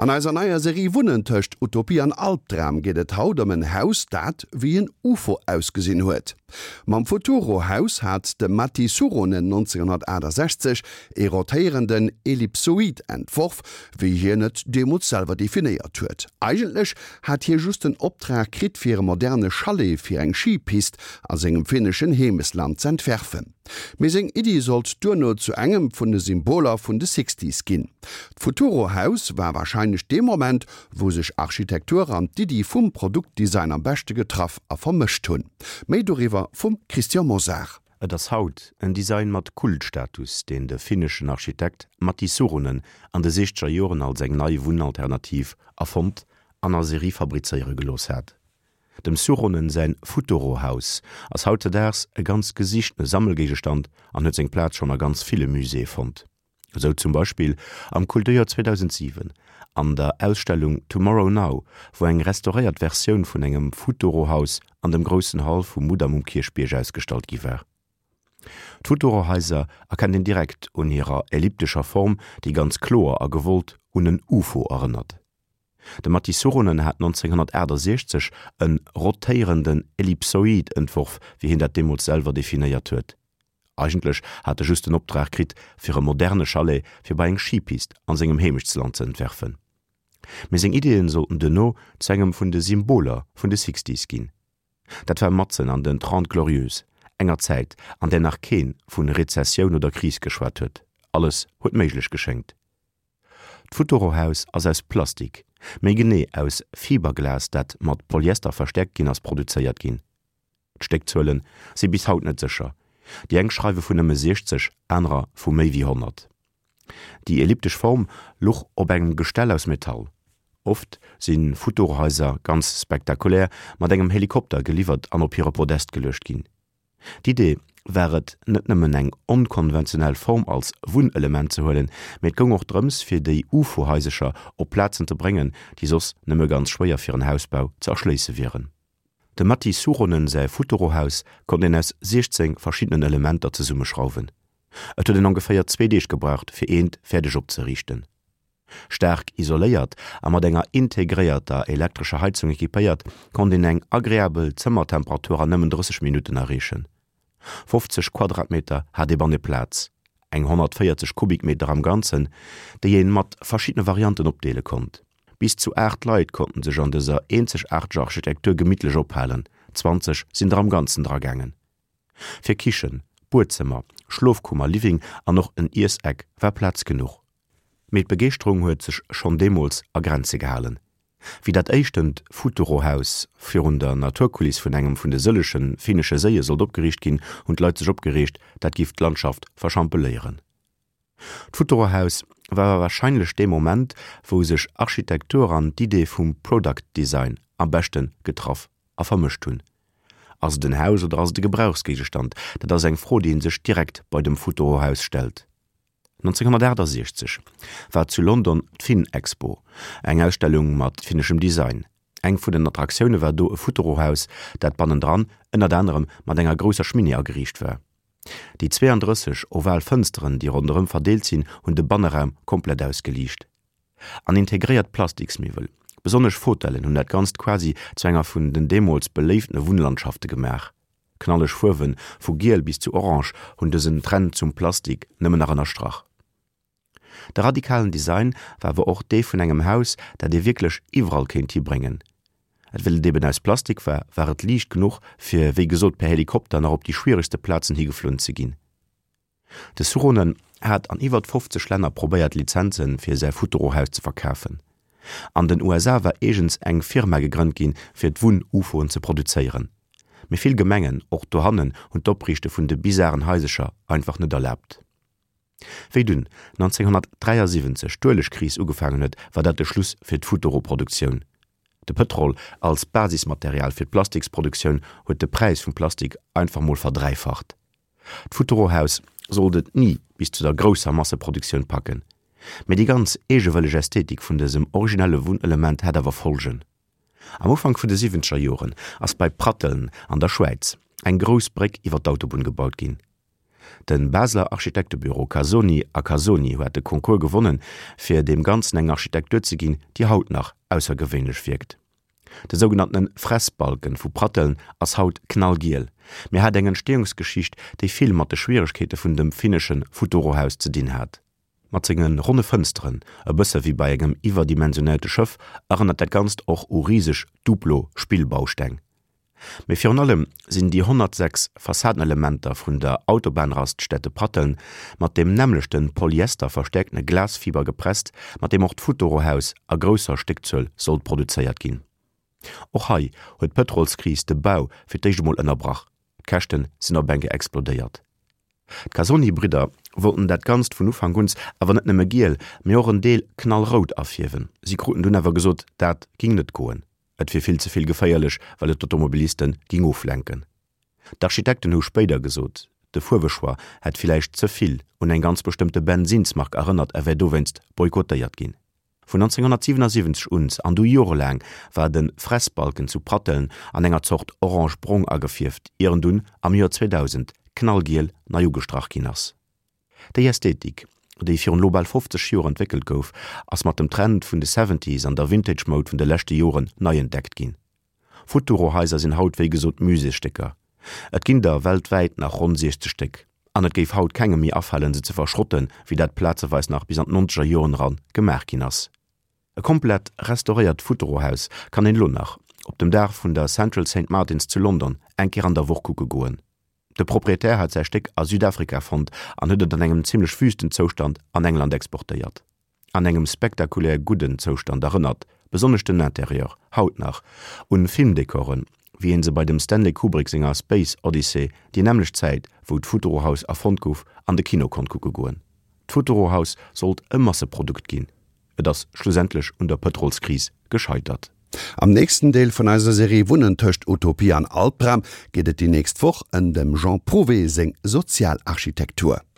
An eiser neier Serie Wunnen tëscht Utopie an Albdram geet et haut ëm en Haus, dat wéi en Ufo ausgesinn huet. Mam Futuro-Haus hat de Matti Suuronen 1968 ee rotéierenden Ellipsoid entworf, wéi hien et deemools selwer definéiert huet. Eigentlech hat hie just den Optrag kritt fir e moderne Chalet fir eng Schipist a sengem finneschen Heemesland z'entwerfen. Mee seng Iddi sollt duerno zu engem vun de Symboler vun de Sixties ginn. D'Futuro-Haus war warscheinlech dee Moment, wou sech Architektur an d'Iddi vum Produktdesign am beschte getraff a vermëscht hunn. Méi doriwwer vum Christian Mosar. Et ass haut en Design mat Kultstatus, deen de finneschen Architekt Matti Suuronen an de siechzeger Joren als eng nei Wunnalternativ erfonnt an a Serie fabrizéiere gelooss hat. Dem Suuronen säin Futuro-Haus ass hautzedaags e ganz gesichtene Sammelgéigestand an huet seng Plaz schonn a ganz ville Muséeë fonnt. Esou zum Beispill am Kulturjoer 2007 an der Ausstellung Tomorrow Now, wou eng restauréiert Versioun vun engem Futuro-Haus an dem groussen Hall vum Mudam um Kierchbierg ausgestallt gi war. D'Futuro-Haiser erkennt een direkt un hirer elliptescher Form, déi ganz kloer a gewollt un en Ufo erënnert. De Matti Suuronen hat 1968 e rotéierenden Ellipsoid entworf, wéi hien dat deemools selwer definéiert huet. Eigentlech hat e just den Optrag kritt, fir e moderne Chalet fir bei eng Schipist an sengem Heemechtsland ze entwerfen. Mee seng Ideeën sollten duerno zu engem vun de Symboler vun de Sixties ginn. Dat war matzen an den Trente Glorieuses, enger Zäit, an där nach keen vun Rezessioun oder Kris geschwat huet. Alles huet méiglech geschéngt. D'Futuro-Haus ass aus Plastik, méi genee aus Fiberglas, dat mat Polyester verstäerkt ginn ass, produzéiert ginn. D'Stéckzuele si bis haut net sécher, déi eng schreiwe vun nëmme 60, anerer vu méi wéi 100. Déi elliptesch Form luch op engem Gestell aus Metall. Oft si Futurohaiser ganz spektakulär mat engem Helikopter geliwwert an op hire Podest geluecht ginn. D'Idee war et, net nëmmen eng onkonventionell Form als Wunnelement ze huelen, mee et goung och drëms, fir déi Ufo-Haisercher op Plazen ze bréngen, déi soss nëmme ganz schwéier fir en Hausbau ze erschléisse wieren. Dem Matti Suuronen säi Futuro-Haus konnt een aus 16 verschiddenen Elementer zesummeschrauwen. Et huet een ongeféier zwee Deeg gebraucht, fir eent fäerdeg opzeriichten. Staark isoléiert a mat enger integréierter elektrescher Heizung equipéiert, konnt een eng agreabel Zëmmertemperatur an nëmmen 30 Minutten erreechen. 50 Quadratmeter hat ee banne Plaz, eng 140 Kubikmeter am Ganzen, déi een mat verschiddene Varianten opdeele konnt. Bis zu 8 Leit konnten sech an dëser eenzegaarteger Architektur gemittlech ophalen, 20 sinn der am Ganzen dra gaangen. Fir Kichen, Buedzëmmer, Schlofkummer, Living an och en Iesseck war Plaz genuch. Mee d'Begeeschterung huet sech schonn deemools a Grenze gehalen. Wéi dat éischtent Futuro-Haus virun der Naturkuliss vun engem vun de sëlleche finnesche Séie sollt opgeriicht ginn, hunn d'Leit sech opgereegt, dat giff d'Landschaft verschampeléieren. D'Futuro-Haus war awer warscheinlech dee Moment, wou sech Architektur an d'Idee vum Product Design am beschte getraff a vermëscht hunn. Ass et en Haus oder ass et e Gebrauchsgéigestand? Dat ass eng Fro, déi ee sech direkt bei dem Futuro-Haus stellt. 1968 war zu London d'Finn-Expo, eng Ausstellung mat finneschem Design. Eng vun den Attraktioune war do e Futurohaus, dat bannendran ënnert anerem mat enger grousser Schminni ageriicht war. Déi 32 oval Fënsteren, déi ronderëm verdeelt sinn, hunn de Banneraum komplett ausgeliicht. An integréiert Plastiksmiwwel, besonnesch Fotellen, hunn dat Ganzt quasi zu enger vun den deemools beléiftene Wunnlandschafte gemaach. Knalleg Fuerwen, vu giel bis zu orange, hunn dësen Trend zum Plastik nëmmen nach ënnerstrach. De radikalen Design war awer och dee vun engem Haus, dat ee wierklech iwwerall kéint hibréngen. Et well et eben aus Plastik war, war et liicht genuch, fir wéi gesot per Helikopter nach op déi schwieregste Plazen higeflunn ze ginn. De Suuronen hat an iwwert 50 Länner probéiert Lizenze fir säi Futuro-Haus ze verkafen. An den USA war eegens eng Firma gegrënnt ginn, fir d'Wunn-UFOen ze produzéieren. Mee vill Gemengen, och dohannen, hunn d'Opriichte vun de bizaren Haisecher einfach net erlaabt. Wéi dunn 1973 d'Uelegkris ugefaangen huet, war dat de Schluss fir d'Futuro-Produktioun. De Pëtrol als Basismaterial fir d'Plastiksproduktioun huet de Präis vum Plastik einfach mol verdräifacht. D'Futurohaus sollt et ni bis zu der grousser Masseproduktioun packen, mee déi ganz eegewëlleg Ästhetik vun dësem originelle Wunnelement hat awer Folgen. Am Ufank vun de siwwenzeger Joren ass bei Pratteln an der Schwäiz eng grouss Bréck iwwer d'Autobunn gebaut ginn. De Basler Architektebüro Casoni a Casoni huat de Concours gewonnen, fir deem Ganzen eng Architektur ze ginn, déi haut nach aussergewéinlech wierkt. De sougenanntene Fressbalken vu Pratteln ass haut knallgiel, mee hat eng Entstehungsgeschicht, déi vill mat de Schwieregkeete vun dem finnesche Futurohaus ze dinn hat. Mat senge ronne Fënsteren, e bësse wéi bei engem iwwerdimensionéierte Schëff, erënnert dat Ganzt och u riseg Duplo-Spillbausteng. Mee virun allem sinn déi 106 Fassadenelementer vun der Autobahnraststätte Pratteln mat deem nämmlechte polyester-verstäerktene Glasfiber gepresst, mat deem och d'Futurohaus a grousser Stéckzuel sollt produzéiert ginn. Och hei huet d'Pëtrolskris de Bau fir d'éischt emol ënnerbrach, d'Käschte sinn op eng Kéier explodéiert. D'Casoni-Bridder wollten dat Ganzt vun Ufank un awer net nëmme giel, mee och en Deel knallrout afierwen. Si kruten dunn awer gesot, dat ging net goen, et wier vill ze vill geféierlech, well et d'Automobiliste ging oflenken. D'Architekten hu spéider gesot, de Fuerwechoix hätt villäicht ze vill un eng ganz bestëmmte Bensinnsmark erënnert a wär dowéinst boykottéiert ginn. Vun 1977 un an du jorelaang war de Fressbalken zu Pratteln an enger Zort orange-brong agefierft, ier en dunn am Joer 2000 knallgiel nei ugestrach ginn ass. Déi Ästhetik, déi virun elo bal 50 Joer entwéckelt gouf, ass mat dem Trend vun de Seventies an der Vintage-Moud vun de leschte Joren nei entdeckt ginn. Futuro-Haiser sinn haut wéi gesot Muséesstécker. Et ginn der weltwäit nach ronn 60 Stéck. An et géif haut kengem méi afalen, se ze verschrotten, wéi dat plazeweis nach bis an d'nonzeger Joren eran gemaach ginn ass. E komplett restauréiert Futuro-Haus kann een elo nach op dem Daach vun der Central Saint Martins zu London eng Kéier an der Woch kucke goen. De Proprietär hat säi Stéck a Südafrika fonnt an huet et an engem zimmlech wüsten Zoustand an England exportéiert. An engem spektakulär gudden Zoustand erënnert besonnesch den Interieur haut nach un Filmdekoren, wéi een se bei dem Stanley Kubrick senger Space Odyssey déi nämmlecht Zäit wou d'Futurohaus erfonnt gouf an de Kino konnt kucke goen. D'Futurohaus sollt e Masseprodukt ginn, et ass schlussendlech un der Pëtrolskris gescheitert. Am nächsten Deel vun eiser Serie Wunnen tëscht Utopie an Albdram geet et déi nächst Woch ëm dem Jean Prouvé seng Sozialarchitektur.